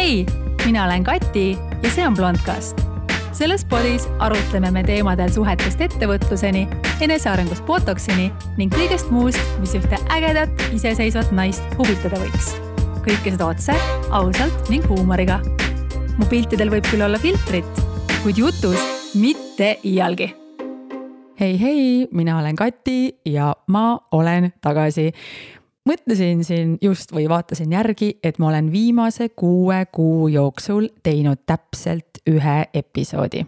Hei, mina olen Kati ja see on Blondcast. Selles podis arutleme me teemadel suhetest ettevõtluseni, enesearengust botoksini ning kõigest muust, mis ühte ägedat, iseseisvat naist huvitada võiks. Kõike seda otse, ausalt ning huumoriga. Mu piltidel võib küll olla filtrit, kuid jutus mitte iialgi. Hei, mina olen Kati ja ma olen tagasi. Mõtlesin siin just või vaatasin järgi, et ma olen viimase 6 kuu jooksul teinud täpselt 1 episoodi.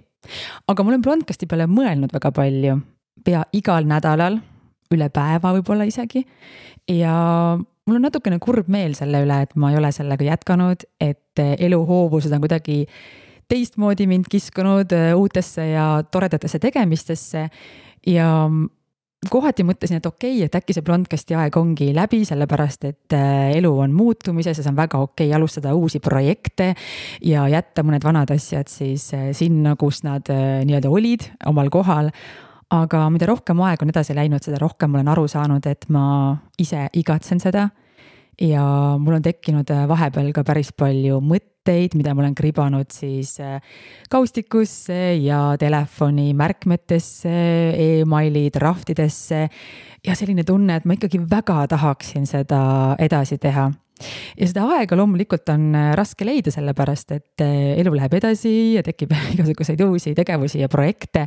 Aga ma olen Blondcasti peale mõelnud väga palju, pea igal nädalal, üle päeva võib-olla isegi. Ja mul on natukene kurb meel selle üle, et ma ei ole sellega jätkanud, et eluhoovused on kuidagi teistmoodi mind kiskunud uutesse ja toredatesse tegemistesse ja kohati mõtlesin, et okei, et äkki see Blondcasti aeg ongi läbi, sellepärast et elu on muutumises ja see on väga okei alustada uusi projekte ja jätta mõned vanad asjad siis sinna, kus nad nii-öelda olid omal kohal. Aga mida rohkem aeg on edasi läinud, seda rohkem olen aru saanud, et ma ise igatsen seda ja mul on tekkinud vahepeal ka päris palju mõtteid, mida ma olen kribanud siis kaustikusse ja telefoni märkmetesse, e-maili draftidesse ja selline tunne, et ma ikkagi väga tahaksin seda edasi teha. Ja seda aega loomulikult on raske leida sellepärast, et elu läheb edasi ja tekib igasuguseid uusi tegevusi ja projekte.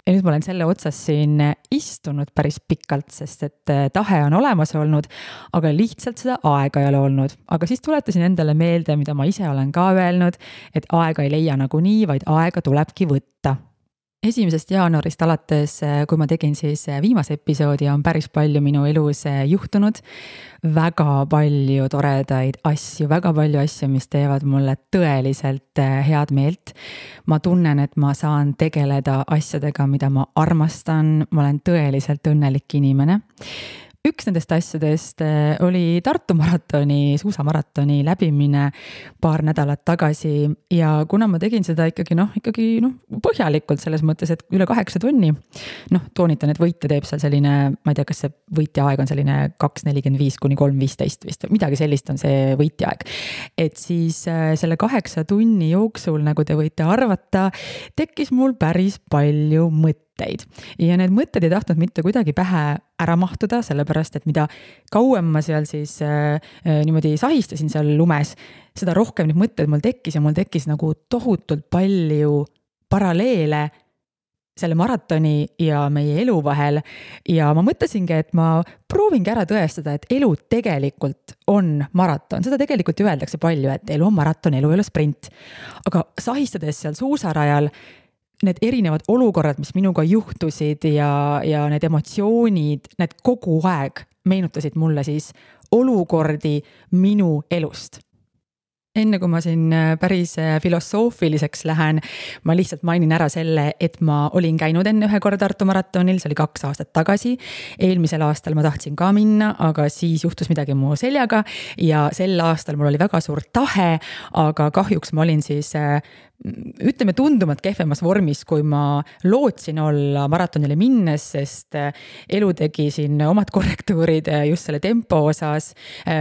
Ja nüüd ma olen selle otsas siin istunud päris pikalt, sest et tahe on olemas olnud, aga lihtsalt seda aega ei ole olnud. Aga siis tuletasin endale meelde, mida ma ise olen ka öelnud, et aega ei leia nagu nii, vaid aega tulebki võtta. 1. jaanuarist alates, kui ma tegin siis viimase episoodi, on päris palju minu elus juhtunud. Väga palju toredaid asju, väga palju asju, mis teevad mulle tõeliselt head meelt. Ma tunnen, et ma saan tegeleda asjadega, mida ma armastan. Ma olen tõeliselt õnnelik inimene. Üks nendest asjadest oli Tartu maratoni, suusamaratoni läbimine paar nädalat tagasi ja kuna ma tegin seda ikkagi põhjalikult selles mõttes, et üle 8 tunni, toonitan, et võitja teeb seal selline, ma ei tea, kas see võitja aeg on selline 2.45 kuni 3.15 vist, midagi sellist on see võitja aeg. Et siis selle 8 tunni jooksul, nagu te võite arvata, tekkis mul päris palju mõtteid. Ja need mõtted ei tahtnud mitte kuidagi pähe ära mahtuda, sellepärast, et mida kauem ma seal siis niimoodi sahistasin seal lumes, seda rohkem need mõtted mul tekkis ja mul tekkis nagu tohutult palju paralleele selle maratoni ja meie elu vahel. Ja ma mõtlesingi, et ma proovingi ära tõestada, et elu tegelikult on maraton. Seda tegelikult ju öeldakse palju, et elu on maraton, elu ei ole sprint. Aga sahistades seal suusarajal, need erinevad olukorrad, mis minuga juhtusid ja need emotsioonid, need kogu aeg meenutasid mulle siis olukordi minu elust. Enne kui ma siin päris filosoofiliseks lähen, ma lihtsalt mainin ära selle, et ma olin käinud enne 1 korda Tartu maratonil, see oli 2 aastat tagasi. Eelmisel aastal ma tahtsin ka minna, aga siis juhtus midagi mu seljaga ja sel aastal mul oli väga suur tahe, aga kahjuks ma olin siis ütleme tundumalt kehvemas vormis, kui ma lootsin olla maratonile minnes, sest elu tegi siin omad korrektuurid just selle tempo osas.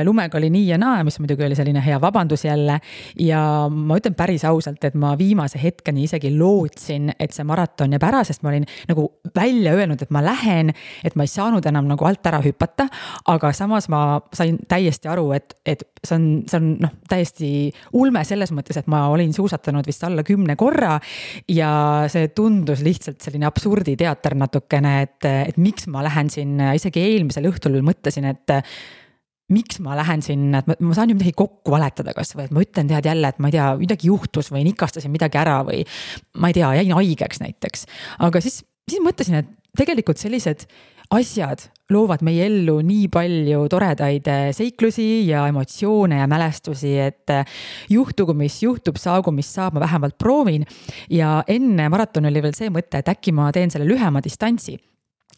Lumega oli nii ja naa, mis muidugi oli selline hea vabandus jälle. Ja ma ütlen päris ausalt, et ma viimase hetkeni isegi lootsin, et see maraton jääb ära, sest ma olin nagu välja öelnud, et ma lähen, et ma ei saanud enam nagu alt ära hüpata, aga samas ma sain täiesti aru, et see on täiesti ulme selles mõttes, et ma olin suusatanud vist alla 10 korra ja see tundus lihtsalt selline absurditeater natukene, et miks ma lähen sinna, isegi eelmisel õhtul mõtlesin, et miks ma lähen sinna, et ma saan ju midagi kokku valetada kas või, et ma ütlen tead jälle, et ma ei tea, midagi juhtus või nikastasin midagi ära või ma ei tea, jäin haigeks näiteks. Aga siis mõtlesin, et tegelikult sellised asjad loovad meie ellu nii palju toredaid seiklusi ja emotsioone ja mälestusi, et juhtugu mis juhtub, saagu mis saab, ma vähemalt proovin. Ja enne maraton oli veel see mõte, et äkki ma teen selle lühema distantsi.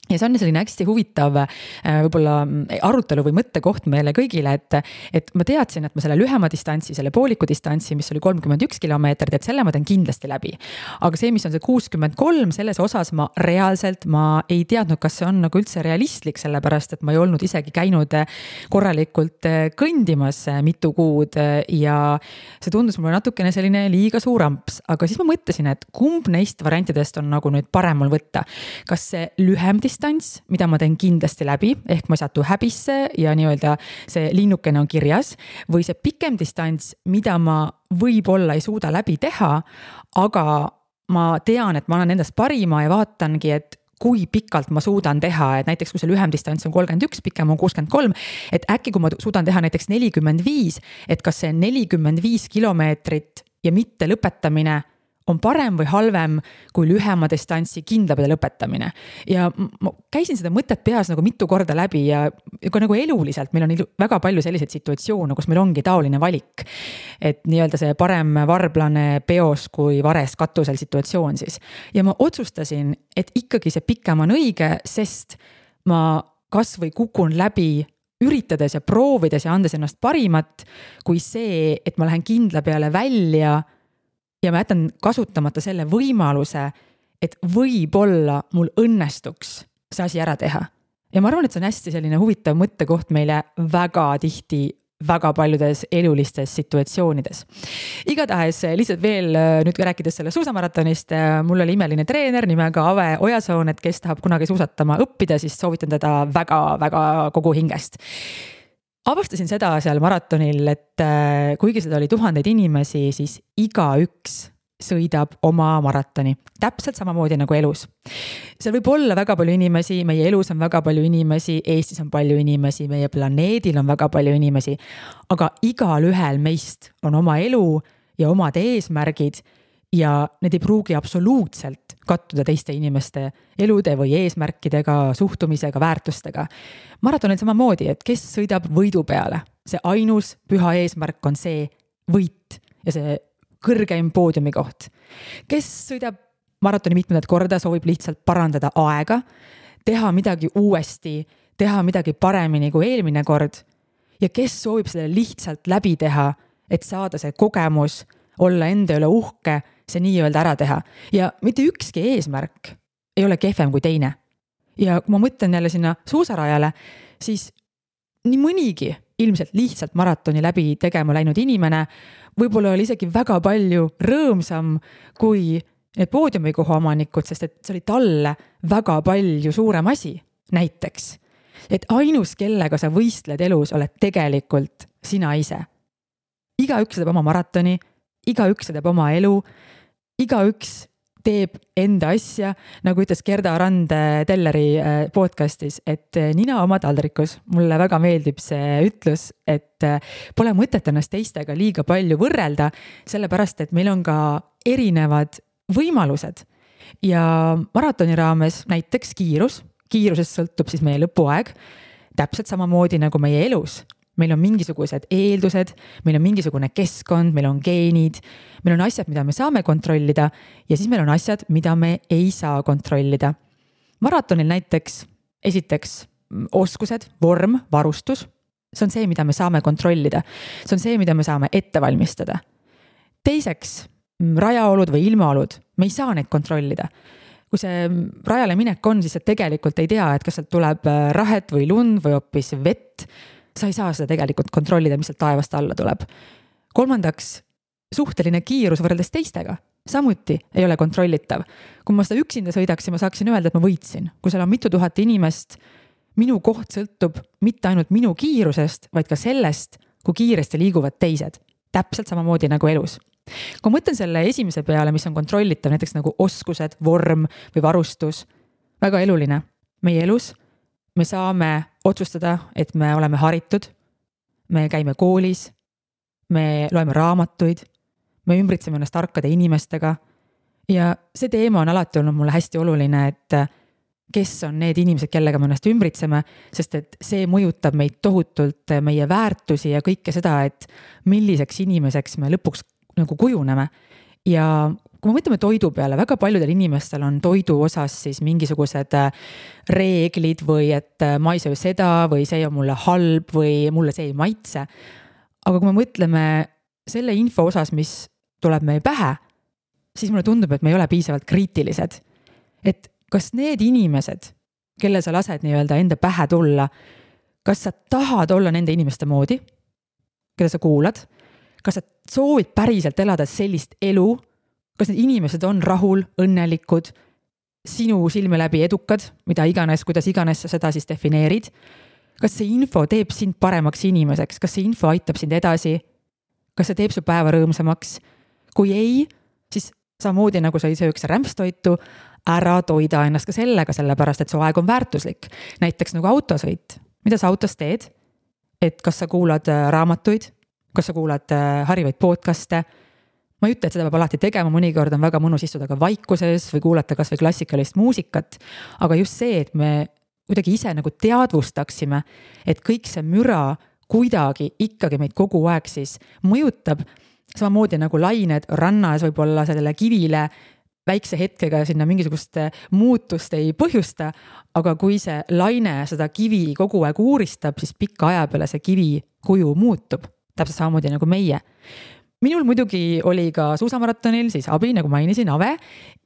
ja see on selline hästi huvitav võib-olla arutelu või mõttekoht meile kõigile, et ma teadsin, et ma selle lühema distantsi, selle pooliku distantsi, mis oli 31 kilomeetrit, et selle ma teen kindlasti läbi. Aga see, mis on see 63, selles osas ma ei teadnud, kas see on nagu üldse realistlik, sellepärast, et ma ei olnud isegi käinud korralikult kõndimas mitu kuud ja see tundus mulle natukene selline liiga suur amps. Aga siis ma mõtlesin, et kumb neist variantidest on nagu nüüd parem mul võtta. Kas see lühem distants, mida ma teen kindlasti läbi, ehk ma ei satu häbisse ja nii-öelda see linnukene on kirjas, või see pikem distants, mida ma võib-olla ei suuda läbi teha, aga ma tean, et ma annan endast parima ja vaatangi, et kui pikalt ma suudan teha, et näiteks kui see lühem distants on 31, pikem on 63, et äkki kui ma suudan teha näiteks 45, et kas see 45 kilomeetrit ja mitte lõpetamine on parem või halvem kui lühema distantsi kindlapidi lõpetamine. Ja ma käisin seda mõtet peas nagu mitu korda läbi ja ka nagu eluliselt meil on väga palju selliseid situatsioone, kus meil ongi taoline valik. Et nii-öelda see parem varblane peos kui vares katusel situatsioon siis. Ja ma otsustasin, et ikkagi see pikem on õige, sest ma kas või kukun läbi üritades ja proovides ja andes ennast parimat, kui see, et ma lähen kindla peale välja ja ma jätan kasutamata selle võimaluse, et võib-olla mul õnnestuks see asi ära teha. Ja ma arvan, et see on hästi selline huvitav mõttekoht meile väga tihti, väga paljudes elulistes situatsioonides. Igatahes lihtsalt veel nüüd rääkides selle suusamaratonist, mul oli imeline treener nimega Ave Ojasoon, et kes tahab kunagi suusatama õppida, siis soovitan teda väga-väga kogu hingest. Avastasin seda seal maratonil, et kuigi seda oli tuhandeid inimesi, siis igaüks sõidab oma maratoni. Täpselt samamoodi nagu elus. Seal võib olla väga palju inimesi, meie elus on väga palju inimesi, Eestis on palju inimesi, meie planeedil on väga palju inimesi, aga igal ühel meist on oma elu ja omad eesmärgid ja need ei pruugi absoluutselt kattuda teiste inimeste elude või eesmärkidega, suhtumisega, väärtustega. Maratonil samamoodi, et kes sõidab võidu peale. See ainus püha eesmärk on see võit ja see kõrgeim poodiumi koht. Kes sõidab maratoni mitmendat korda, soovib lihtsalt parandada aega, teha midagi uuesti, teha midagi paremini kui eelmine kord ja kes soovib selle lihtsalt läbi teha, et saada see kogemus, olla enda üle uhke, see nii-öelda ära teha. Ja mitte ükski eesmärk ei ole kehvem kui teine. Ja kui ma mõtlen jälle sinna suusarajale, siis nii mõnigi ilmselt lihtsalt maratoni läbi tegema läinud inimene võib-olla oli isegi väga palju rõõmsam kui need poodiumikoha omanikud, sest et see oli talle väga palju suurem asi. Näiteks, et ainus, kellega sa võistled elus, oled tegelikult sina ise. Igaüks teeb oma maratoni, igaüks teeb oma elu, igaüks teeb enda asja, nagu ütles Gerda Rand Telleri podcastis, et nina oma taldrikus. Mulle väga meeldib see ütlus, et pole mõtet ennast teistega liiga palju võrrelda, sellepärast, et meil on ka erinevad võimalused. Ja maratoni raames näiteks kiirusest sõltub siis meie lõpuaeg, täpselt samamoodi nagu meie elus. Meil on mingisugused eeldused, meil on mingisugune keskkond, meil on geenid, meil on asjad, mida me saame kontrollida ja siis meil on asjad, mida me ei saa kontrollida. Maratonil näiteks esiteks oskused, vorm, varustus, see on see, mida me saame kontrollida. See on see, mida me saame ette valmistada. Teiseks, rajaolud või ilmaolud, me ei saa neid kontrollida. Kui see rajale minek on, siis sa tegelikult ei tea, et kas sealt tuleb rahet või lund või hoopis vett. Sa ei saa seda tegelikult kontrollida, mis sealt taevast alla tuleb. Kolmandaks, suhteline kiirus võrreldes teistega. Samuti ei ole kontrollitav. Kui ma seda üksinda sõidaksin, ma saaksin öelda, et ma võitsin. Kui seal on mitu tuhat inimest, minu koht sõltub mitte ainult minu kiirusest, vaid ka sellest, kui kiiresti liiguvad teised. Täpselt samamoodi nagu elus. Kui mõtlen selle esimese peale, mis on kontrollitav, näiteks nagu oskused, vorm või varustus, väga eluline. Meie elus me saame otsustada, et me oleme haritud, me käime koolis, me loeme raamatuid, me ümbritseme ennast tarkade inimestega ja see teema on alati olnud mulle hästi oluline, et kes on need inimesed, kellega me ennast ümbritseme, sest et see mõjutab meid tohutult, meie väärtusi ja kõike seda, et milliseks inimeseks me lõpuks nagu kujuneme. Ja kui me mõtleme toidu peale, väga paljudel inimestel on toidu osas siis mingisugused reeglid või et ma ei söö seda või see on mulle halb või mulle see ei maitse. Aga kui me mõtleme selle info osas, mis tuleb meie pähe, siis mulle tundub, et me ei ole piisavalt kriitilised. Et kas need inimesed, kelle sa lased nii-öelda enda pähe tulla, kas sa tahad olla nende inimeste moodi, keda sa kuulad? Kas sa soovid päriselt elada sellist elu? Kas need inimesed on rahul, õnnelikud, sinu silme läbi edukad, mida iganes, kuidas iganes sa seda siis defineerid? Kas see info teeb sind paremaks inimeseks? Kas see info aitab sind edasi? Kas see teeb su päeva rõõmsamaks? Kui ei, siis samamoodi nagu sa ei sööks rämpstoitu, ära toida ennast ka sellega, sellepärast et su aeg on väärtuslik. Näiteks nagu autosõit. Mida sa autos teed? Et kas sa kuulad raamatuid? Kas sa kuulad harivaid podcaste? Ma ei ütle, et seda peab alati tegema, mõnikord on väga mõnus istuda ka vaikuses või kuulata kas või klassikalist muusikat, aga just see, et me kuidagi ise nagu teadvustaksime, et kõik see müra kuidagi ikkagi meid kogu aeg siis mõjutab, samamoodi nagu lained rannas võib-olla sellele kivile väikse hetkega sinna mingisugust muutust ei põhjusta, aga kui see laine seda kivi kogu aeg uuristab, siis pikka aja peale see kivi kuju muutub, täpselt samamoodi nagu meie. Minul muidugi oli ka suusamaratonil siis abi, nagu mainisin, Ave,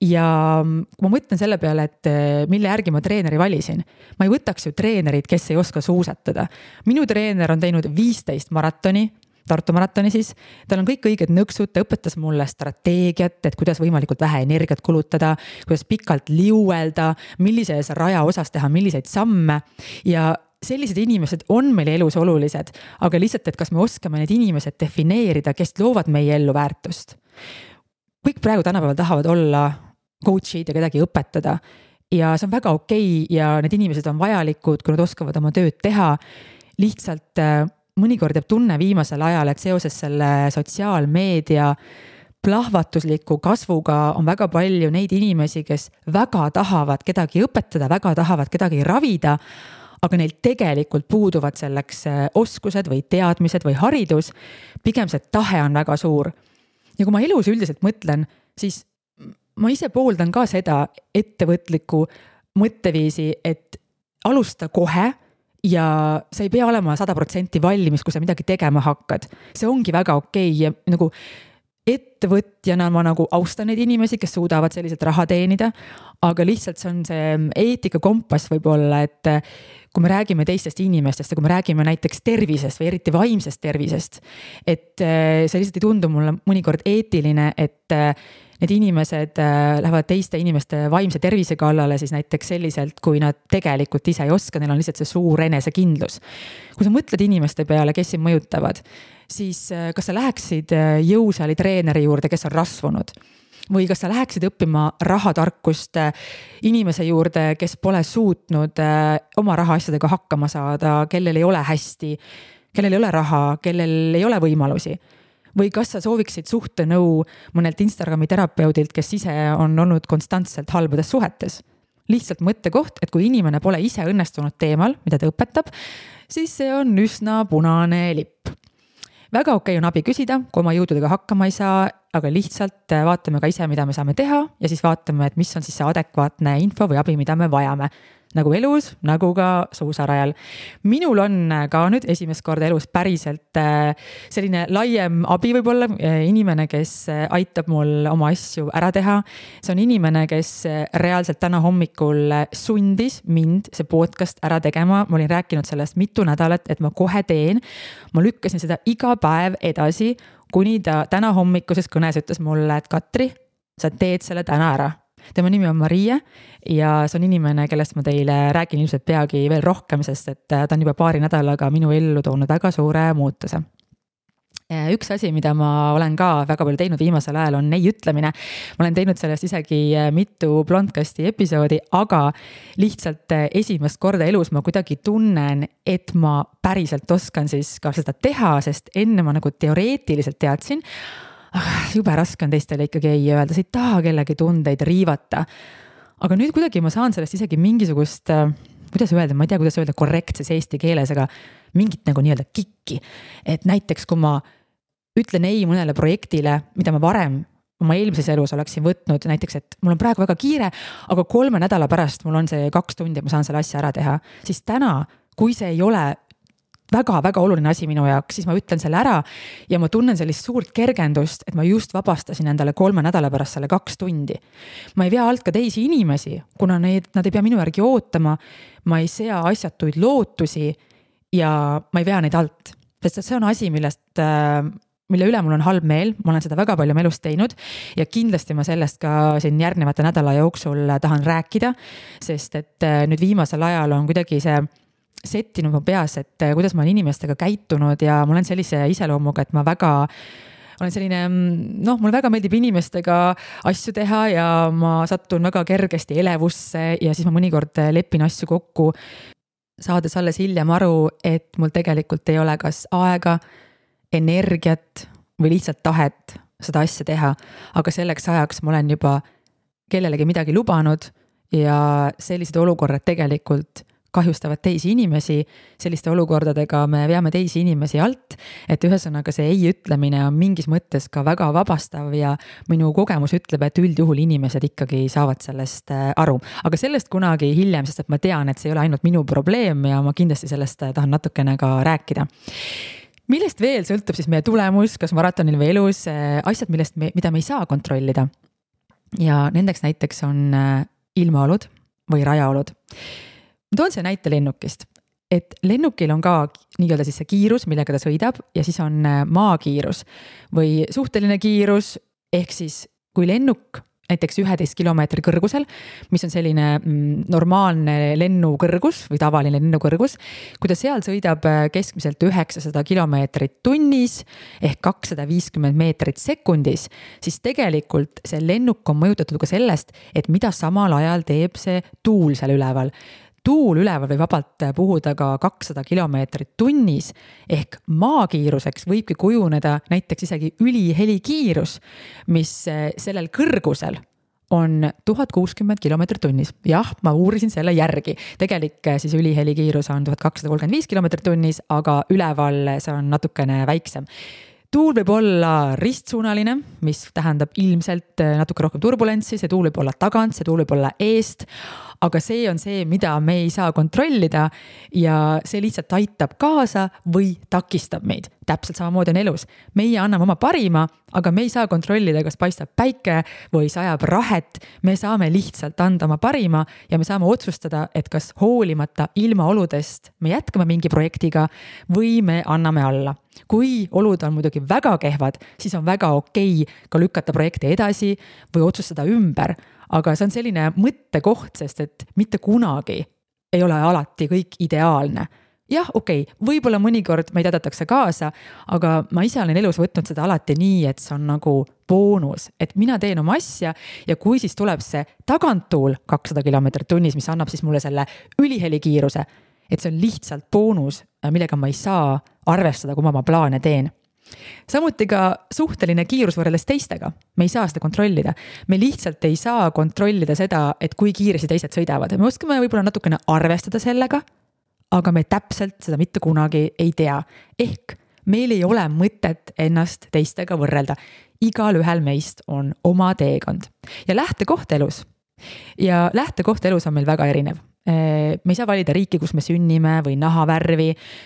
ja ma mõtlen selle peale, et mille järgi ma treeneri valisin. Ma ei võtaks ju treenerid, kes ei oska suusatada. Minu treener on teinud 15 maratoni, Tartu maratoni siis, tal on kõik õiged nõksud, ta õpetas mulle strateegiat, et kuidas võimalikult vähe energiat kulutada, kuidas pikalt liuelda, millises raja osas teha, milliseid samme ja sellised inimesed on meil elus olulised, aga lihtsalt, et kas me oskame need inimesed defineerida, kes loovad meie ellu väärtust. Kõik praegu tänapäeval tahavad olla coach'id ja kedagi õpetada ja see on väga okei ja need inimesed on vajalikud, kui nad oskavad oma tööd teha. Lihtsalt mõnikord jääb tunne viimasel ajal, et seoses selle sotsiaalmeedia plahvatusliku kasvuga on väga palju neid inimesi, kes väga tahavad kedagi õpetada, väga tahavad kedagi ravida, aga neil tegelikult puuduvad selleks oskused või teadmised või haridus, pigem see tahe on väga suur. Ja kui ma elus üldiselt mõtlen, siis ma ise pooldan ka seda ettevõtliku mõtteviisi, et alusta kohe ja sa ei pea olema 100% valmis, kui sa midagi tegema hakkad. See ongi väga okei ja nagu ettevõtjana ma nagu austan neid inimesi, kes suudavad selliselt raha teenida, aga lihtsalt see on see eetika kompass võib-olla, et kui me räägime teistest inimestest ja kui me räägime näiteks tervisest või eriti vaimsest tervisest, et see lihtsalt ei tundu mulle mõnikord eetiline, et need inimesed lähevad teiste inimeste vaimse tervise kallale siis näiteks selliselt, kui nad tegelikult ise ei oska, neil on lihtsalt see suur enesekindlus. Kui sa mõtled inimeste peale, kes sind mõjutavad, siis kas sa läheksid jõusaali treeneri juurde, kes on rasvunud? Või kas sa läheksid õppima rahatarkust inimese juurde, kes pole suutnud oma rahaasjadega hakkama saada, kellel ei ole hästi, kellel ei ole raha, kellel ei ole võimalusi? Või kas sa sooviksid suhtenõu mõnelt Instagrami terapeudilt, kes ise on olnud konstantselt halbades suhetes? Lihtsalt mõttekoht, et kui inimene pole ise õnnestunud teemal, mida ta õpetab, siis see on üsna punane lipp. Väga okei on abi küsida, kui oma jõududega hakkama ei saa, aga lihtsalt vaatame ka ise, mida me saame teha ja siis vaatame, et mis on siis see adekvaatne info või abi, mida me vajame. Nagu elus, nagu ka suusarajal. Minul on ka nüüd esimest korda elus päriselt selline laiem abi võib-olla, inimene, kes aitab mul oma asju ära teha. See on inimene, kes reaalselt täna hommikul sundis mind see podcast ära tegema. Ma olin rääkinud sellest mitu nädalat, et ma kohe teen. Ma lükkasin seda iga päev edasi, kuni ta täna hommikuses kõnes ütles mulle, et Katri, sa teed selle täna ära. Tema nimi on Maria ja see on inimene, kellest ma teile räägin ilmselt peagi veel rohkem, sest et ta on juba paari nädalaga minu ellu toonud väga suure muutuse. Üks asi, mida ma olen ka väga palju teinud viimasel ajal, on ei ütlemine. Ma olen teinud sellest isegi mitu Blondcasti episoodi, aga lihtsalt esimest korda elus ma kuidagi tunnen, et ma päriselt oskan siis ka seda teha, sest enne ma nagu teoreetiliselt teadsin, jube raske on teistele ikkagi ei öelda, sa ei taha kellegi tundeid riivata. Aga nüüd kuidagi ma saan sellest isegi mingisugust, kuidas öelda, ma ei tea, kuidas öelda korrektses eesti keeles, aga mingit nagu nii-öelda kikki. Et näiteks, kui ma ütlen ei mõnele projektile, mida ma varem oma eelmises elus oleksin võtnud näiteks, et mul on praegu väga kiire, aga 3 nädala pärast mul on see 2 tundi, ma saan selle asja ära teha, siis täna, kui see ei ole väga-väga oluline asi minu jaoks, siis ma ütlen selle ära ja ma tunnen sellist suurt kergendust, et ma just vabastasin endale 3 nädala pärast selle 2 tundi. Ma ei vea alt ka teisi inimesi, kuna nad ei pea minu järgi ootama, ma ei sea asjatuid lootusi ja ma ei vea neid alt. Sest see on asi, mille üle mul on halb meel, ma olen seda väga palju elus teinud ja kindlasti ma sellest ka siin järgnevate nädala jooksul tahan rääkida, sest et nüüd viimasel ajal on kuidagi see settinud mu peas, et kuidas ma olen inimestega käitunud ja ma olen sellise iseloomuga, et ma olen selline, mulle väga meeldib inimestega asju teha ja ma sattun väga kergesti elevusse ja siis ma mõnikord lepin asju kokku, saades alles hiljem aru, et mul tegelikult ei ole kas aega, energiat või lihtsalt tahet seda asja teha, aga selleks ajaks ma olen juba kellelegi midagi lubanud ja sellised olukorrad tegelikult kahjustavad teisi inimesi, selliste olukordadega me veame teisi inimesi alt, et ühesõnaga see ei ütlemine on mingis mõttes ka väga vabastav ja minu kogemus ütleb, et üldjuhul inimesed ikkagi saavad sellest aru. Aga sellest kunagi hiljem, sest et ma tean, et see ei ole ainult minu probleem ja ma kindlasti sellest tahan natukene ka rääkida. Millest veel sõltub siis meie tulemus, kas maratonil või elus, asjad, mida me ei saa kontrollida. Ja nendeks näiteks on ilmaolud või rajaolud. Ma toon see näite lennukist, et lennukil on ka nii-öelda siis see kiirus, millega ta sõidab ja siis on maakiirus või suhteline kiirus, ehk siis kui lennuk näiteks 11 kilomeetri kõrgusel, mis on selline normaalne lennukõrgus või tavaline lennukõrgus, kui ta seal sõidab keskmiselt 900 kilomeetrit tunnis ehk 250 meetrit sekundis, siis tegelikult see lennuk on mõjutatud ka sellest, et mida samal ajal teeb see tuul seal üleval. Tuul üleval või vabalt puhuda ka 200 kilomeetrit tunnis ehk maakiiruseks võibki kujuneda näiteks isegi ülihelikiirus, mis sellel kõrgusel on 1060 kilomeetrit tunnis. Jah, ma uurisin selle järgi. Tegelik siis ülihelikiirus on 1235 kilomeetrit tunnis, aga üleval see on natukene väiksem. Tuul võib olla ristsuunaline, mis tähendab ilmselt natuke rohkem turbulentsi, see tuul võib olla tagant, see tuul võib olla eest, aga see on see, mida me ei saa kontrollida ja see lihtsalt aitab kaasa või takistab meid. Täpselt samamoodi on elus. Meie anname oma parima, aga me ei saa kontrollida, kas paistab päike või sajab rahet. Me saame lihtsalt anda oma parima ja me saame otsustada, et kas hoolimata ilmaoludest me jätkame mingi projektiga või me anname alla. Kui olud on muidugi väga kehvad, siis on väga okei ka lükata projekti edasi või otsustada ümber. Aga see on selline mõttekoht, sest et mitte kunagi ei ole alati kõik ideaalne. Jah, okei, võib-olla mõnikord meid aidatakse kaasa, aga ma ise olen elus võtnud seda alati nii, et see on nagu boonus, et mina teen oma asja ja kui siis tuleb see taganttuul 200 kilomeetrit tunnis, mis annab siis mulle selle ülihelikiiruse, et see on lihtsalt boonus, millega ma ei saa arvestada, kui ma oma plaane teen. Samuti ka suhteline kiirus võrreldes teistega. Me ei saa seda kontrollida. Me lihtsalt ei saa kontrollida seda, et kui kiiresti teised sõidavad. Me oskame võib-olla natukene arvestada sellega, aga me täpselt seda mitte kunagi ei tea. Ehk meil ei ole mõtet ennast teistega võrrelda. Igal ühel meist on oma teekond. Ja lähtekoht elus. Ja lähtekoht elus on meil väga erinev. Me ei saa valida riiki, kus me sünnime või nahavärvi,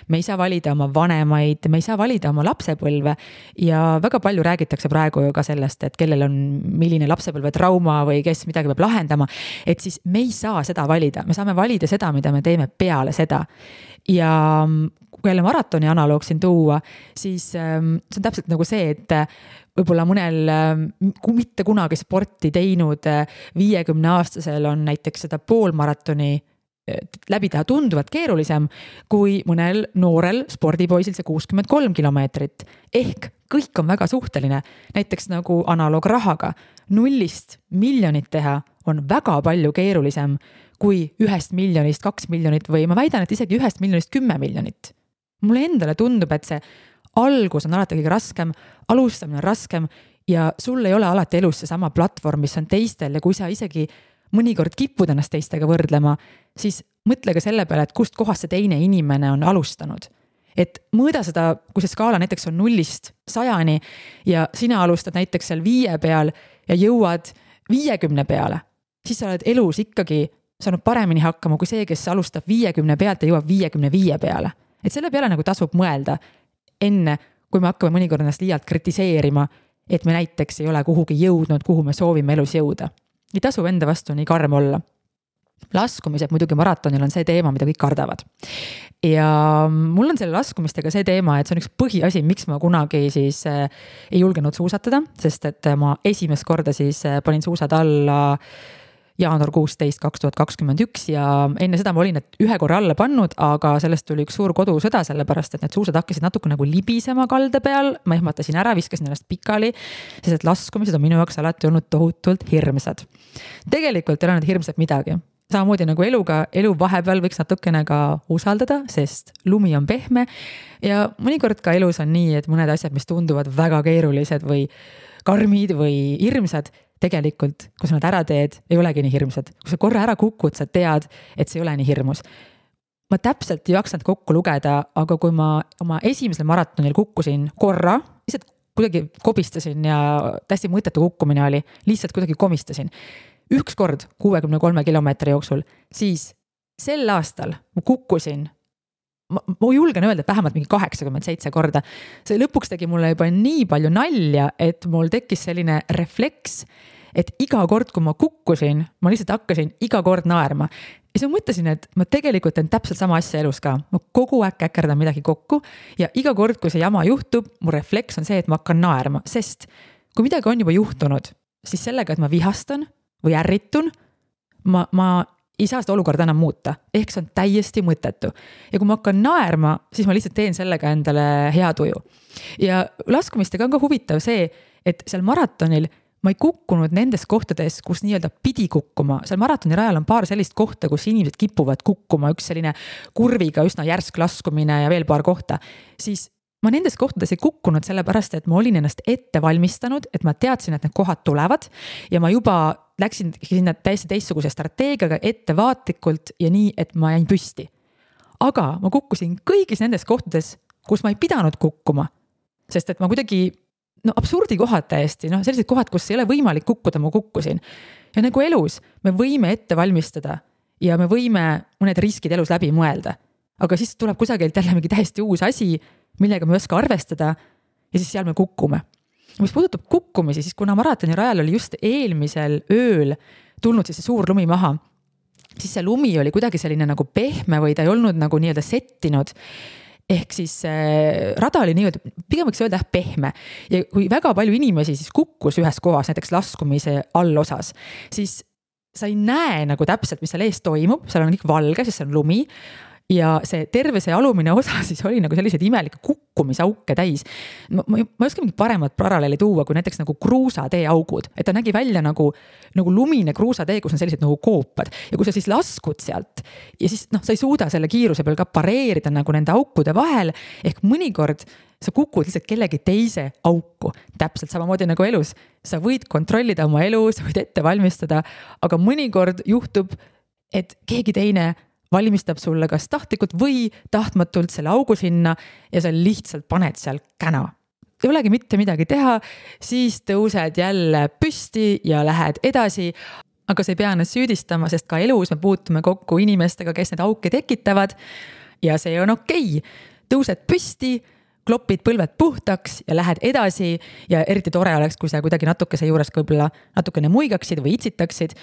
me ei saa valida oma vanemaid, me ei saa valida oma lapsepõlve ja väga palju räägitakse praegu ju ka sellest, et kellel on milline lapsepõlve trauma või kes midagi peab lahendama, et siis me ei saa seda valida, me saame valida seda, mida me teeme peale seda. Ja kui jälle maratoni analoog siin tuua, siis see on täpselt nagu see, et võib-olla mõnel mitte kunagi sporti teinud 50-aastasel on näiteks seda poolmaratoni läbi teha tunduvalt keerulisem kui mõnel noorel spordipoisil see 63 kilomeetrit. Ehk kõik on väga suhteline. Näiteks nagu analoog rahaga. 0 miljonit teha on väga palju keerulisem kui 1 miljonist 2 miljonit või ma väidan, et isegi 1 miljonist 10 miljonit. Mulle endale tundub, et see algus on alati kõige raskem, alustamine on raskem ja sul ei ole alati elus see sama platvorm, mis on teistel ja kui sa isegi mõnikord kipud ennast teistega võrdlema, siis mõtle ka selle peale, et kust kohast see teine inimene on alustanud. et mõõda seda, kui see skaala näiteks on 0-100 ja sina alustad näiteks seal 5 peal ja jõuad 50 peale, siis sa oled elus ikkagi saanud paremini hakkama kui see, kes alustab 50 pealt ja jõuab 55 peale. Et selle peale nagu tasub mõelda enne, kui me hakkame mõnikord ennast liialt kritiseerima, et me näiteks ei ole kuhugi jõudnud, kuhu me soovime elus jõuda. Ei tasu enda vastu nii karm olla. Laskumised muidugi maratonil on see teema, mida kõik kardavad. Ja mul on selle laskumistega see teema, et see on üks põhiasi, miks ma kunagi siis ei julgenud suusatada, sest et ma esimest korda siis panin suusad alla jaanuar 16, 2021 ja enne seda ma olin need ühe korra alla pannud, aga sellest tuli üks suur kodusõda, sellepärast et need suusad hakkasid natuke nagu libisema kalde peal, ma ehmatasin ära, viskasin ennast pikali, sest et laskumised on minu jaoks alati olnud tohutult hirmsad. Tegelikult ei ole need hirmsad midagi. Samamoodi nagu elu vahepeal võiks natukene ka usaldada, sest lumi on pehme ja mõnikord ka elus on nii, et mõned asjad, mis tunduvad väga keerulised või karmid või hirmsad, tegelikult, kui sa nad ära teed, ei olegi nii hirmsad. Kui sa korra ära kukud, sa tead, et see ei ole nii hirmus. Ma täpselt ei jaksanud kokku lugeda, aga kui ma oma esimesel maratonil kukkusin korra, lihtsalt kuidagi kobistasin ja täiesti mõttetu kukkumine oli, lihtsalt kuidagi komistasin. Üks kord 63 kilomeetri jooksul, siis sel aastal ma kukkusin, ma julgen öelda, et vähemalt mingi 87 korda. See lõpuks tegi mulle juba nii palju nalja, et mul tekkis selline refleks, et iga kord, kui ma kukkusin, ma lihtsalt hakkasin iga kord naerma. Ja siis ma mõtlesin, et ma tegelikult teen täpselt sama asja elus ka. Ma kogu aeg käkerdan midagi kokku ja iga kord, kui see jama juhtub, mu refleks on see, et ma hakkan naerma, sest kui midagi on juba juhtunud, siis sellega, et ma vihastan või ärritun, ma ei saa seda olukorda enam muuta. Ehk see on täiesti mõttetu. Ja kui ma hakkan naerma, siis ma lihtsalt teen sellega endale hea tuju. Ja laskumistega on ka huvitav see, et seal maratonil ma ei kukkunud nendes kohtades, kus nii-öelda pidi kukkuma. Seal maratoni rajal on paar sellist kohta, kus inimesed kipuvad kukkuma, üks selline kurviga üsna järsk laskumine ja veel paar kohta. Siis ma nendes kohtades ei kukkunud sellepärast, et ma olin ennast ette valmistanud, et ma teadsin, et need kohad tulevad ja ma juba läksin sinna täiesti teistsuguse strateegiaga ettevaatlikult ja nii, et ma jäin püsti. Aga ma kukkusin kõigis nendes kohtades, kus ma ei pidanud kukkuma, sest et ma kuidagi absurdi kohad täiesti, sellised kohad, kus ei ole võimalik kukkuda, ma kukkusin. Ja nagu elus, me võime ette valmistada ja me võime mõned riskid elus läbi mõelda, aga siis tuleb kusagilt jälle mingi täiesti uus asi, millega me ei oska arvestada ja siis seal me kukkume. Mis puudutab kukkumisi, siis kuna maratoni rajal oli just eelmisel ööl tulnud siis see suur lumi maha, siis see lumi oli kuidagi selline nagu pehme või ta ei olnud nagu nii-öelda settinud. Ehk siis rada oli nii-öelda, pigem võiks öelda pehme. Ja kui väga palju inimesi siis kukkus ühes kohas, näiteks laskumise allosas, siis sa ei näe nagu täpselt, mis seal ees toimub, seal on kõik valge, sest see on lumi. Ja see terve see alumine osa siis oli nagu sellised imelike kukkumisauke täis. Ma ei oska mingi paremat paralleeli tuua, kui näiteks nagu kruusatee augud. Et ta nägi välja nagu lumine kruusatee, kus on sellised nagu koopad. Ja kui sa siis laskud sealt ja siis sa ei suuda selle kiiruse peal ka pareerida nagu nende aukude vahel, ehk mõnikord sa kukud lihtsalt kellegi teise auku. Täpselt samamoodi nagu elus. Sa võid kontrollida oma elu, sa võid ette valmistada, aga mõnikord juhtub, et keegi teine valmistab sulle kas tahtlikult või tahtmatult selle augu sinna ja sa lihtsalt paned seal käna. Ei olegi mitte midagi teha, siis tõused jälle püsti ja lähed edasi, aga sa ei pea ennast süüdistama, sest ka elus me puutume kokku inimestega, kes need auke tekitavad ja see on okei. Tõused püsti, klopid põlved puhtaks ja lähed edasi ja eriti tore oleks, kui sa kuidagi natukese juures võib-olla natukene muigaksid või itsitaksid.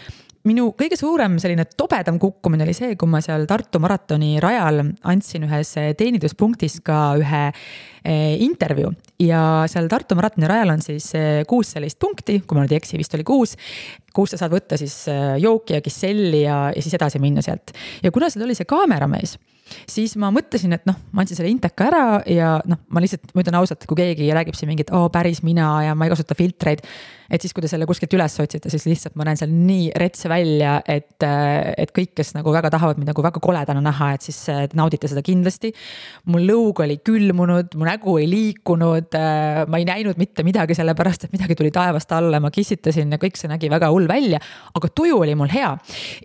Minu kõige suurem selline tobedam kukkumine oli see, kui ma seal Tartu maratoni rajal andsin ühes teeninduspunktis ka ühe intervjuu ja seal Tartu maratoni rajal on siis 6 sellist punkti, kui ma nüüd ei eksi, vist oli 6, kus sa saad võtta siis jooki ja kisselli ja siis edasi minna sealt. Ja kuna seal oli see kaameramees, siis ma mõtlesin, et ma andsin selle inteka ära ja ma lihtsalt mõtlen ausalt, kui keegi räägib siin mingit, päris mina ja ma ei kasuta filtreid, et siis kui te selle kuskilt üles otsite, siis lihtsalt ma näen seal nii retse välja, et kõik, kes nagu väga tahavad mind nagu väga koledana näha, et siis naudite seda kindlasti. Mul lõug oli külmunud, mu nägu ei liikunud, ma ei näinud mitte midagi sellepärast, et midagi tuli taevast alla, ma kissitasin ja kõik see nägi väga hull välja, aga tuju oli mul hea.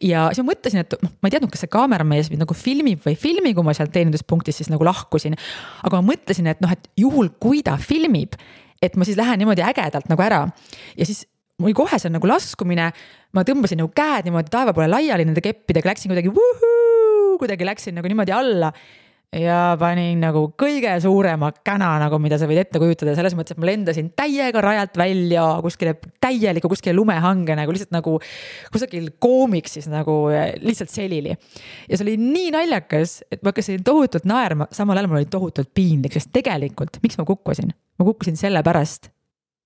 Ja siis ma mõtlesin, et ma ei teadnud, kas see kaameramees mind nagu filmib või filmi, kui ma sealt teeninduspunktis siis nagu lahkusin. Aga ma mõtlesin, et et juhul, kui ta filmib, et ma siis lähen niimoodi ägedalt nagu ära. Ja siis mul kohe see nagu laskumine, ma tõmbasin nagu käed niimoodi taeva poole laiali nende keppidega, läksin kuidagi läksin nagu niimoodi alla ja panin nagu kõige suurema käna, nagu mida sa võid ette kujutada. Selles mõttes, et ma lendasin täiega rajalt välja kuskile lumehange, nagu lihtsalt nagu kusagil koomiks siis nagu lihtsalt selili. Ja see oli nii naljakas, et ma hakkasin tohutult naerma, samal ajal mul oli tohutult piinlik, sest tegelikult, miks ma kukkusin? Ma kukkusin selle pärast,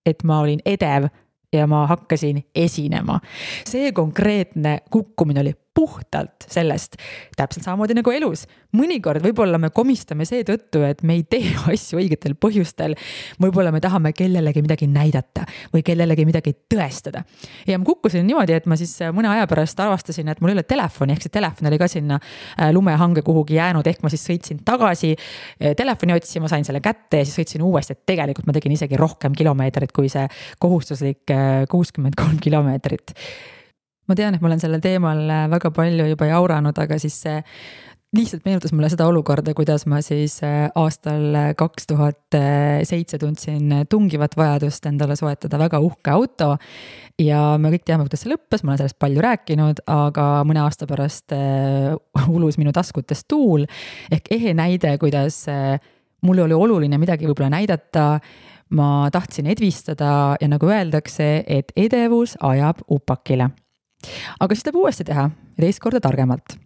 et ma olin edev ja ma hakkasin esinema. See konkreetne kukkumine oli puhtalt sellest, täpselt samamoodi nagu elus. Mõnikord võib-olla me komistame see tõttu, et me ei tee asju õigetel põhjustel. Võib-olla me tahame kellelegi midagi näidata või kellelegi midagi tõestada. Ja ma kukkusin niimoodi, et ma siis mõne aja pärast avastasin, et mul ei ole telefoni, ehk see telefon oli ka sinna lumehange kuhugi jäänud, ehk ma siis sõitsin tagasi telefoni otsima, sain selle kätte ja siis sõitsin uuesti, et tegelikult ma tegin isegi rohkem kilomeetrit kui see kohustuslik 63 kilomeetrit. Ma tean, et ma olen sellel teemal väga palju juba jauranud, aga siis see lihtsalt meenutas mulle seda olukorda, kuidas ma siis aastal 2007 tundsin tungivat vajadust endale soetada väga uhke auto ja me kõik teame, kuidas see lõppes, ma olen sellest palju rääkinud, aga mõne aasta pärast ulus minu taskutest tuul ehk ehe näide, kuidas mul oli oluline midagi võib-olla näidata, ma tahtsin edvistada ja nagu öeldakse, et edevus ajab upakile. Aga siis tuleb uuesti teha ja teist korda targemalt.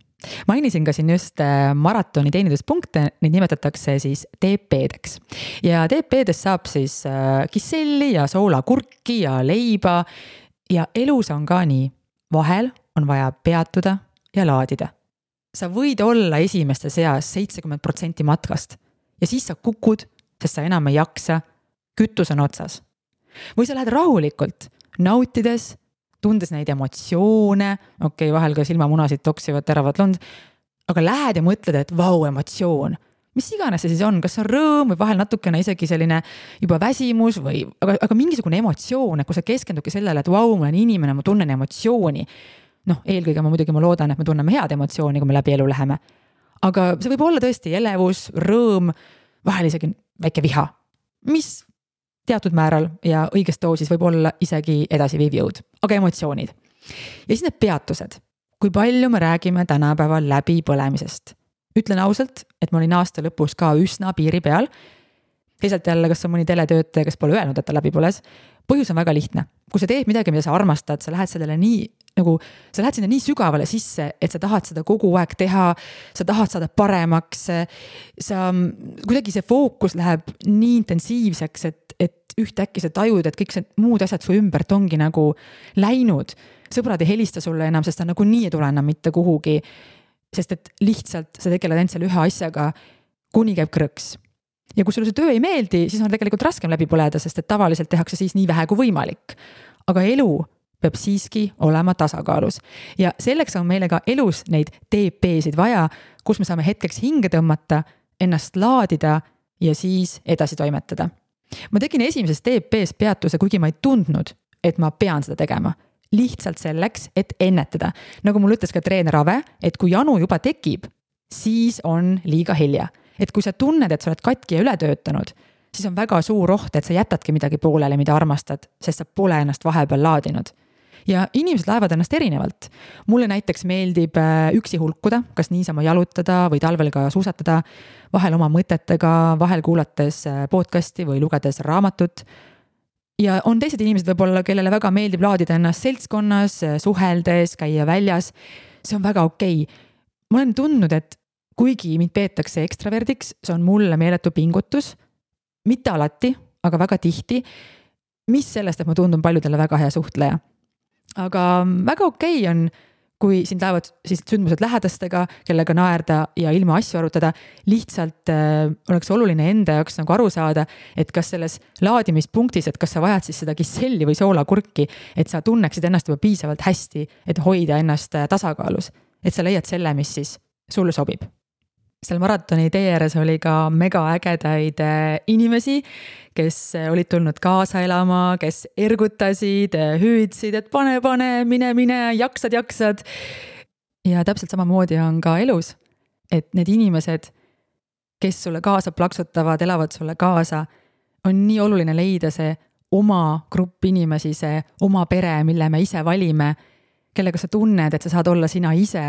Mainisin ka siin just maratoni teeninduspunkte, neid nimetatakse siis TP-deks. Ja TP-dest saab siis kisselli ja soolakurki ja leiba ja elus on ka nii. Vahel on vaja peatuda ja laadida. Sa võid olla esimeste seas 70% matkast ja siis sa kukud, sest sa enam ei jaksa, kütus on otsas. Või sa lähed rahulikult, nautides, tundes neid emotsioone, vahel ka silmamunasid toksivad teravad lund, aga lähed ja mõtled, et vau, emotsioon. Mis iganes see siis on, kas on rõõm või vahel natukene isegi selline juba väsimus või, aga mingisugune emotsioon, et kui sa keskendudki sellele, et vau, ma olen inimene, ma tunnen emotsiooni. Eelkõige ma loodan, et me tunneme head emotsiooni, kui me läbi elu läheme. Aga see võib olla tõesti elevus, rõõm, vahel isegi väike viha, mis teatud määral ja õigest doosis võib olla isegi edasiviiv jõud, aga emotsioonid. Ja siis need peatused. Kui palju me räägime tänapäeval läbi põlemisest? Ütlen ausalt, et ma olin aasta lõpus ka üsna piiri peal. Teisalt jälle, kas on mõni teletöötaja, kes pole öelnud, et ta läbi põles. Põhjus on väga lihtne. Kui sa teed midagi, mida sa armastad, sa lähed sellele sa lähed sinna nii sügavale sisse, et sa tahad seda kogu aeg teha, sa tahad saada paremaks, kuidagi see fookus läheb nii intensiivseks, et ühtäkki sa tajud, et kõik see muud asjad su ümbert ongi nagu läinud. Sõbrad ei helista sulle enam, sest ta nagu nii ei tule enam mitte kuhugi, sest et lihtsalt sa tegeled ainult selle ühe asjaga, kuni käib krõks. Ja kui sulle see töö ei meeldi, siis on tegelikult raskem läbi põleda, sest et tavaliselt tehakse siis nii vähe kui võimalik. Aga elu peab siiski olema tasakaalus. Ja selleks on meile ka elus neid TP-sid vaja, kus me saame hetkeks hinge tõmmata, ennast laadida ja siis edasi toimetada. Ma tegin esimeses TP-s peatuse, kuigi ma ei tundnud, et ma pean seda tegema. Lihtsalt selleks, et ennetada. Nagu mul ütles ka treener Ave, et kui janu juba tekib, siis on liiga hilja. Et kui sa tunned, et sa oled katki ja üle töötanud, siis on väga suur oht, et sa jätadki midagi poolele, mida armastad, sest sa pole ennast vahepeal laadinud. Ja inimesed laevad ennast erinevalt. Mulle näiteks meeldib üksi hulkuda, kas niisama jalutada või talvel ka suusatada, vahel oma mõtetega, vahel kuulates podcasti või lugedes raamatut. Ja on teised inimesed võib-olla, kellele väga meeldib laadida ennast seltskonnas, suheldes, käia väljas. See on väga okei. Ma olen tundnud, et kuigi mind peetakse ekstraverdiks, see on mulle meeletu pingutus. Mitte alati, aga väga tihti. Mis sellest, et ma tundun paljudele väga hea suhtleja. Aga väga okei on, kui sind laevad siis sündmused lähedastega, kellega naerda ja ilma asju arutada, lihtsalt oleks oluline enda jaoks nagu aru saada, et kas selles laadimispunktis, et kas sa vajad siis seda kisselli või soolakurki, et sa tunneksid ennast juba piisavalt hästi, et hoida ennast tasakaalus, et sa leiad selle, mis siis sulle sobib. Seal maratoni tee ääres oli ka mega ägedaid inimesi, kes olid tulnud kaasa elama, kes ergutasid, hüüdsid, et pane, mine, jaksad. Ja täpselt samamoodi on ka elus. et need inimesed, kes sulle kaasa plaksutavad, elavad sulle kaasa, on nii oluline leida see oma grupp inimesi, see oma pere, mille me ise valime, kellega sa tunned, et sa saad olla sina ise,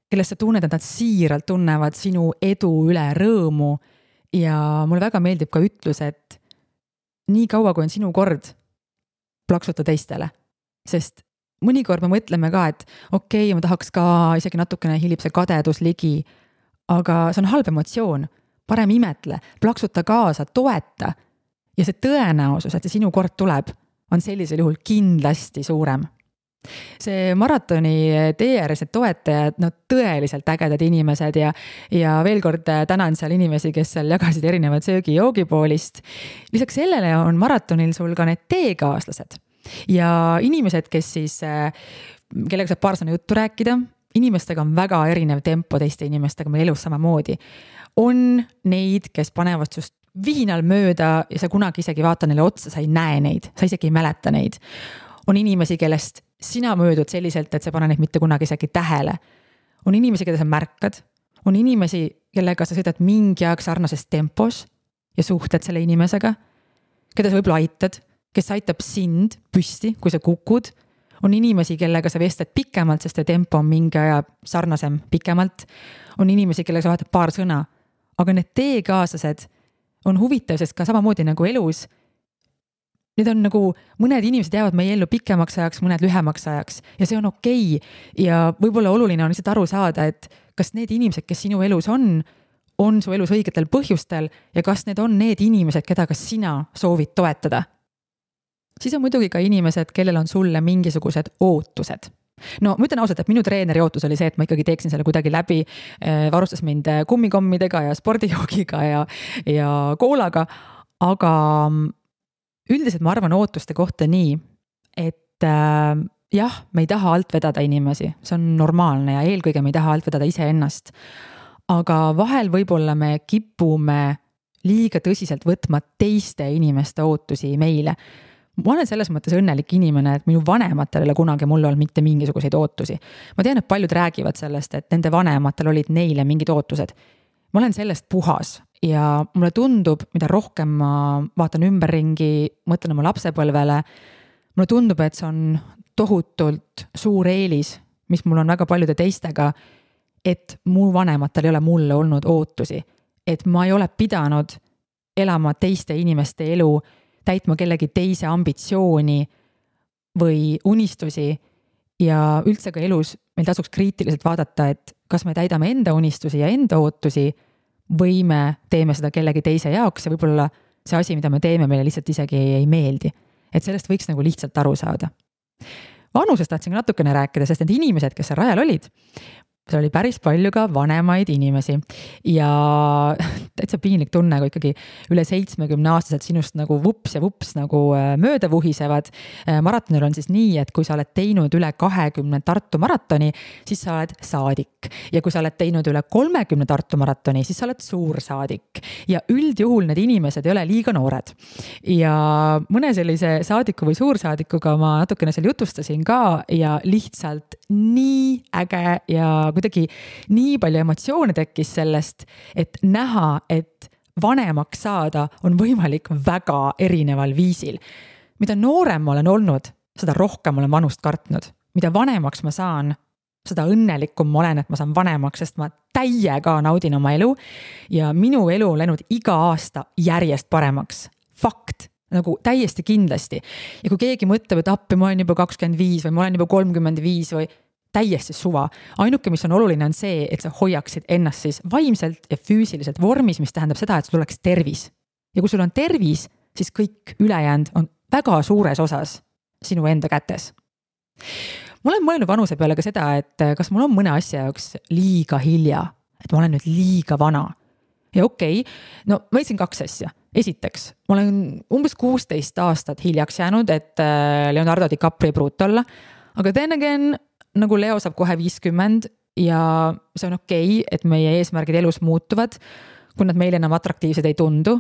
kellest sa tunned, et nad siiralt tunnevad sinu edu üle rõõmu. Ja mulle väga meeldib ka ütlus, et nii kaua, kui on sinu kord, plaksuta teistele. Sest mõnikord me mõtleme ka, et okei, ma tahaks ka isegi natukene hilib see kadedus ligi, aga see on halb emotsioon. Parem imetle, plaksuta kaasa, toeta. Ja see tõenäosus, et see sinu kord tuleb, on sellisel juhul kindlasti suurem. See maratoni tee ääres need toetajad, tõeliselt ägedad inimesed ja veel kord tänan seal inimesi, kes seal jagasid erinevad söögi-joogipoolist. Lisaks sellele on maratonil sul ka need teekaaslased ja inimesed, kes siis, kellega saab paar sõna juttu rääkida, inimestega on väga erinev tempo teiste inimestega meil elus samamoodi. On neid, kes panevad sust vihinal mööda ja sa kunagi isegi vaata neile otsa, sa ei näe neid, sa isegi ei mäleta neid. On inimesi, kellest sina möödud selliselt, et sa pane neid mitte kunagi isegi tähele. On inimesi, keda sa märkad. On inimesi, kellega sa sõidad mingi aeg sarnases tempos ja suhted selle inimesega, keda sa võib-olla aitad, kes aitab sind püsti, kui sa kukud. On inimesi, kellega sa vestled pikemalt, sest tempo on mingi aja sarnasem pikemalt. On inimesi, kellega sa vahetad paar sõna. Aga need teekaaslased on huvitav, sest ka samamoodi nagu elus, need on nagu, mõned inimesed jäävad meie ellu pikemaks ajaks, mõned lühemaks ajaks ja see on okei. Ja võib-olla oluline on lihtsalt aru saada, et kas need inimesed, kes sinu elus on su elus õigetel põhjustel ja kas need on need inimesed, keda ka sina soovid toetada. Siis on muidugi ka inimesed, kellel on sulle mingisugused ootused. No ma ütlen ausalt, et minu treeneri ootus oli see, et ma ikkagi teeksin selle kuidagi läbi, varustas mind kummikommidega ja spordijoogiga ja koolaga, aga üldiselt ma arvan ootuste kohta nii, et jah, me ei taha alt vedada inimesi, see on normaalne ja eelkõige me ei taha alt vedada iseennast, aga vahel võib-olla me kipume liiga tõsiselt võtma teiste inimeste ootusi meile. Ma olen selles mõttes õnnelik inimene, et minu vanematel ei ole kunagi mulle olnud mitte mingisuguseid ootusi. Ma tean, et paljud räägivad sellest, et nende vanematel olid neile mingid ootused. Ma olen sellest puhas ja mulle tundub, mida rohkem ma vaatan ümberringi, mõtlen oma lapsepõlvele, mulle tundub, et see on tohutult suur eelis, mis mul on väga paljude teistega, et mu vanematel ei ole mulle olnud ootusi, et ma ei ole pidanud elama teiste inimeste elu, täitma kellegi teise ambitsiooni või unistusi ja üldse ka elus meil tasuks kriitiliselt vaadata, et kas me täidame enda unistusi ja enda ootusi või me teeme seda kellegi teise jaoks ja võib-olla see asi, mida me teeme, meile lihtsalt isegi ei meeldi. Et sellest võiks nagu lihtsalt aru saada. Vanusest tahtsin natukene rääkida, sest need inimesed, kes seal rajal olid, see oli päris palju ka vanemaid inimesi ja täitsa piinlik tunne, kui ikkagi üle 70 aastased sinust nagu vups ja vups nagu mööda vuhisevad. Maratonil on siis nii, et kui sa oled teinud üle 20 Tartu maratoni, siis sa oled saadik. Ja kui sa oled teinud üle 30 Tartu maratoni, siis sa oled suursaadik. Ja üldjuhul need inimesed ei ole liiga noored. Ja mõne sellise saadiku või suursaadikuga ma natukene seal jutustasin ka ja lihtsalt nii äge ja kuidagi nii palju emotsioone tekkis sellest, et näha, et vanemaks saada on võimalik väga erineval viisil. Mida noorem ma olen olnud, seda rohkem olen vanust kartnud. Mida vanemaks ma saan, seda õnnelikum ma olen, et ma saan vanemaks, sest ma täiega naudin oma elu ja minu elu on läinud iga aasta järjest paremaks. Fakt. Nagu täiesti kindlasti. Ja kui keegi mõtleb, et appi ma olen juba 25 või ma olen juba 35 või täiesti suva. Ainuke, mis on oluline, on see, et sa hoiaksid ennast siis vaimselt ja füüsiliselt vormis, mis tähendab seda, et sul oleks tervis. Ja kui sul on tervis, siis kõik ülejäänud on väga suures osas sinu enda kätes. Ma olen mõelnud vanuse peale ka seda, et kas mul on mõne asja jaoks liiga hilja, et ma olen nüüd liiga vana. Ja okei, no ma ütlesin 2 asja. Esiteks, ma olen umbes 16 aastat hiljaks jäänud, et Leonardo DiCaprio pruut olla, aga then again, nagu Leo saab kohe 50 ja see on okei, et meie eesmärgid elus muutuvad, kui nad meile enam atraktiivsed ei tundu.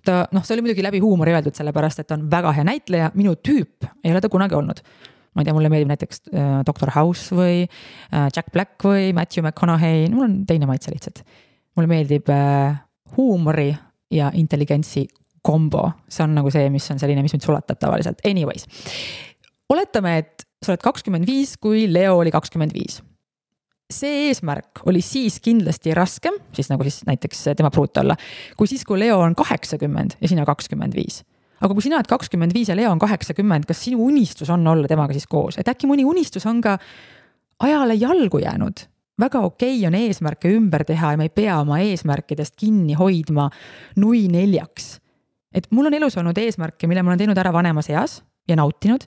See oli muidugi läbi huumori öeldud sellepärast, et on väga hea näitleja, minu tüüp ei ole ta kunagi olnud. ma ei tea, mulle meeldib näiteks Dr. House või Jack Black või Matthew McConaughey, mul on teine maitse lihtsalt. Mulle meeldib huumori ja intelligentsi kombo, see on nagu see, mis on selline, mis mind sulatab tavaliselt. Anyways, oletame, et sa oled 25, kui Leo oli 25. See eesmärk oli siis kindlasti raskem, siis nagu siis näiteks tema pruut olla, kui siis, kui Leo on 80 ja sina 25. Aga kui sina oled 25 ja Leo on 80, kas sinu unistus on olla temaga siis koos? Et äkki mõni unistus on ka ajale jalgu jäänud? Väga okei on eesmärke ümber teha ja me ei pea oma eesmärkidest kinni hoidma nui 4. Et mul on elus olnud eesmärke, mille ma olen teinud ära vanemas eas ja nautinud.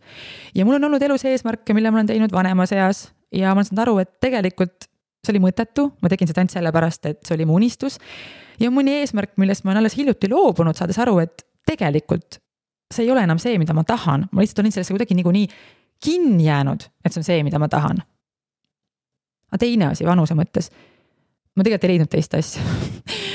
Ja mul on olnud elus eesmärke, mille ma olen teinud vanemas eas ja ma olen saanud aru, et tegelikult see oli mõttetu. Ma tegin seda ainult sellepärast, et see oli mu unistus. Ja mõni eesmärk, millest ma olen alles hiljuti loobunud, saades aru, et tegelikult see ei ole enam see, mida ma tahan. Ma lihtsalt olin sellesse kuidagi nii kinni jäänud, et see on see, mida ma tahan. Aga teine asi vanuse mõttes. Ma tegelikult ei leidnud teist asja.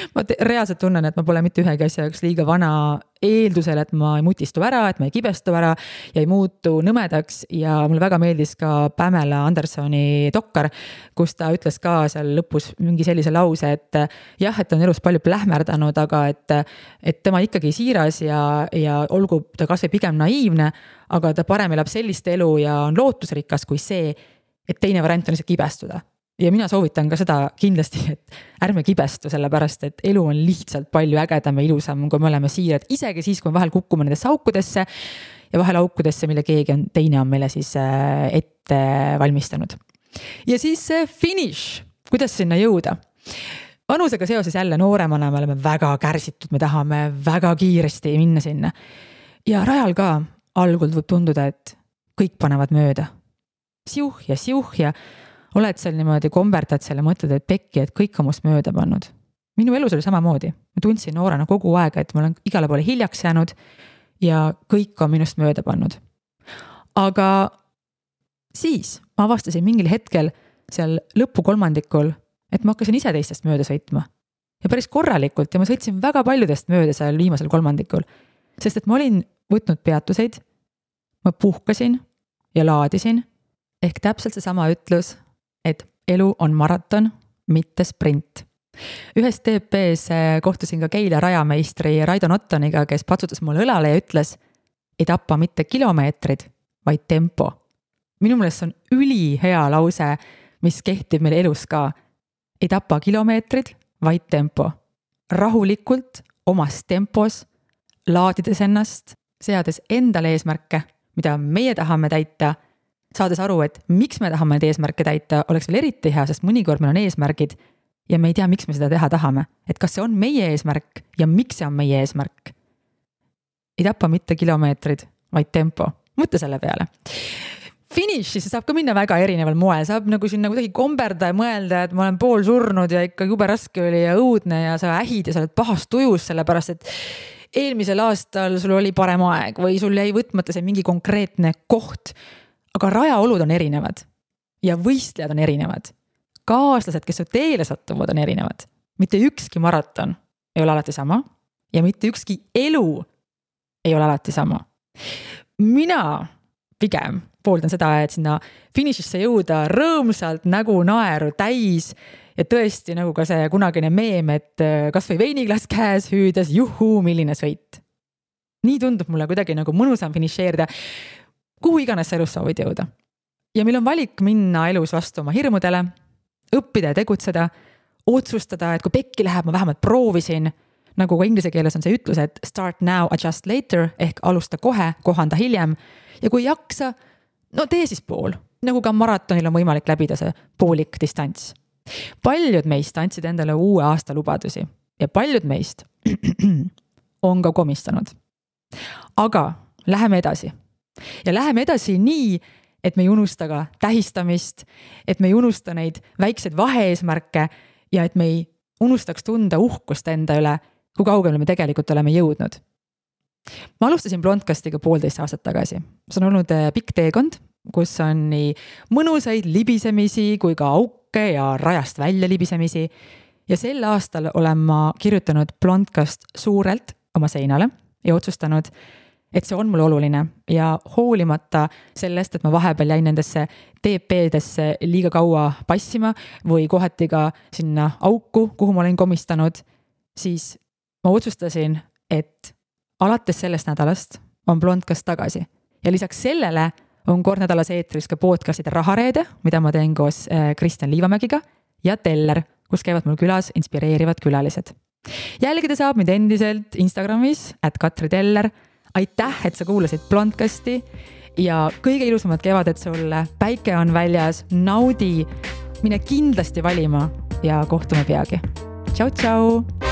Ma reaalselt tunnen, et ma pole mitte ühegi asja jaoks liiga vana eeldusel, et ma ei mutistu ära, et ma ei kibestu ära ja ei muutu nõmedaks. Ja mulle väga meeldis ka Pamela Andersoni dokkar, kus ta ütles ka seal lõpus mingi sellise lause, et jah, et on elus palju plähmerdanud, aga et tema ikkagi siiras ja olgu ta kas või pigem naiivne, aga ta parem elab sellist elu ja on lootusrikas kui see, et teine variant on lihtsalt kibestuda. Ja mina soovitan ka seda kindlasti, et ärme kibestu, sellepärast, et elu on lihtsalt palju ägedam ja ilusam, kui me oleme siirad, isegi siis, kui me vahel kukume nendesse aukudesse ja vahel aukudesse, mille teine on meile siis ette valmistanud. Ja siis finish, kuidas sinna jõuda. Vanusega seoses jälle nooremana me oleme väga kärsitud, me tahame väga kiiresti minna sinna. Ja rajal ka algul võib tunduda, et kõik panevad mööda. Siuh ja oled seal niimoodi komberdad selle mõtled, et pekki, et kõik on must mööda pannud. Minu elus oli samamoodi. Ma tundsin noorena kogu aega, et ma olen igale poole hiljaks jäänud ja kõik on minust mööda pannud. Aga siis ma avastasin mingil hetkel seal lõpu kolmandikul, et ma hakkasin ise teistest mööda sõitma. Ja päris korralikult ja ma sõitsin väga paljudest mööda seal viimasel kolmandikul. Sest et ma olin võtnud peatuseid, ma puhkasin ja laadisin, ehk täpselt see sama ütlus, et elu on maraton, mitte sprint. Ühes TP-s kohtusin ka Keila rajameistri Raido Nottoniga, kes patsutas mulle õlale ja ütles, ei tapa mitte kilomeetrid, vaid tempo. Minu meelest on ülihea lause, mis kehtib meil elus ka. Ei tapa kilomeetrid, vaid tempo. Rahulikult, omas tempos, laadides ennast, seades endale eesmärke, mida meie tahame täita, saades aru, et miks me tahame need eesmärke täita, oleks veel eriti hea, sest mõnikord meil on eesmärgid ja me ei tea, miks me seda teha tahame. Et kas see on meie eesmärk ja miks see on meie eesmärk. Ei tapa mitte kilomeetrid, vaid tempo. Mõtle selle peale. Finish, siis saab ka minna väga erineval moel. Saab nagu sinna kuidagi komberda ja mõelda, et ma olen pool surnud ja ikka jube raske oli ja õudne ja sa ähid ja sa oled pahast tujus, sellepärast et eelmisel aastal sul oli parem aeg või sul jäi võtmata see mingi konkreetne koht. Aga rajaolud on erinevad ja võistlejad on erinevad. Kaaslased, kes su teele sattuvad, on erinevad. Mitte ükski maraton ei ole alati sama ja mitte ükski elu ei ole alati sama. Mina pigem pooldan seda, et sinna finišisse jõuda rõõmsalt nägu naeru täis ja tõesti nagu ka see kunagine meem, et kas või veiniklaas käes hüüdes, juhuu, milline sõit. Nii tundub mulle kuidagi nagu mõnusam finišeerida, kuhu iganes sa elus soovid jõuda. Ja meil on valik minna elus vastu oma hirmudele, õppida ja tegutseda, otsustada, et kui pekki läheb, ma vähemalt proovisin, nagu ka inglise keeles on see ütlus, et start now, adjust later, ehk alusta kohe, kohanda hiljem. Ja kui jaksa, no tee siis pool. Nagu ka maratonil on võimalik läbida see poolik distants. Paljud meist andsid endale uue aasta lubadusi ja paljud meist on ka komistanud. Aga läheme edasi. Ja läheme edasi nii, et me ei unusta ka tähistamist, et me ei unusta neid väikseid vaheeesmärke ja et me ei unustaks tunda uhkust enda üle, kui kaugele me tegelikult oleme jõudnud. Ma alustasin Blondcastiga 1,5 aastat tagasi. See on olnud pikk teekond, kus on nii mõnusaid libisemisi kui ka auke ja rajast välja libisemisi. Ja sel aastal olen ma kirjutanud Blondcast suurelt oma seinale ja otsustanud, et see on mulle oluline ja hoolimata sellest, et ma vahepeal jäin nendesse TP-desse liiga kaua passima või kohati ka sinna auku, kuhu ma olin komistanud, siis ma otsustasin, et alates sellest nädalast on Blondcast tagasi. Ja lisaks sellele on kord nädalas eetris ka podcastide Rahareede, mida ma teen koos Kristjan Liivamägiga ja Teller, kus käivad mul külas inspireerivad külalised. Jälgida saab mind endiselt Instagramis @KatriTeller. Aitäh, et sa kuulasid Blondcasti ja kõige ilusamad kevadet sulle. Päike on väljas, naudi, mine kindlasti valima ja kohtume peagi. Tšau, tšau!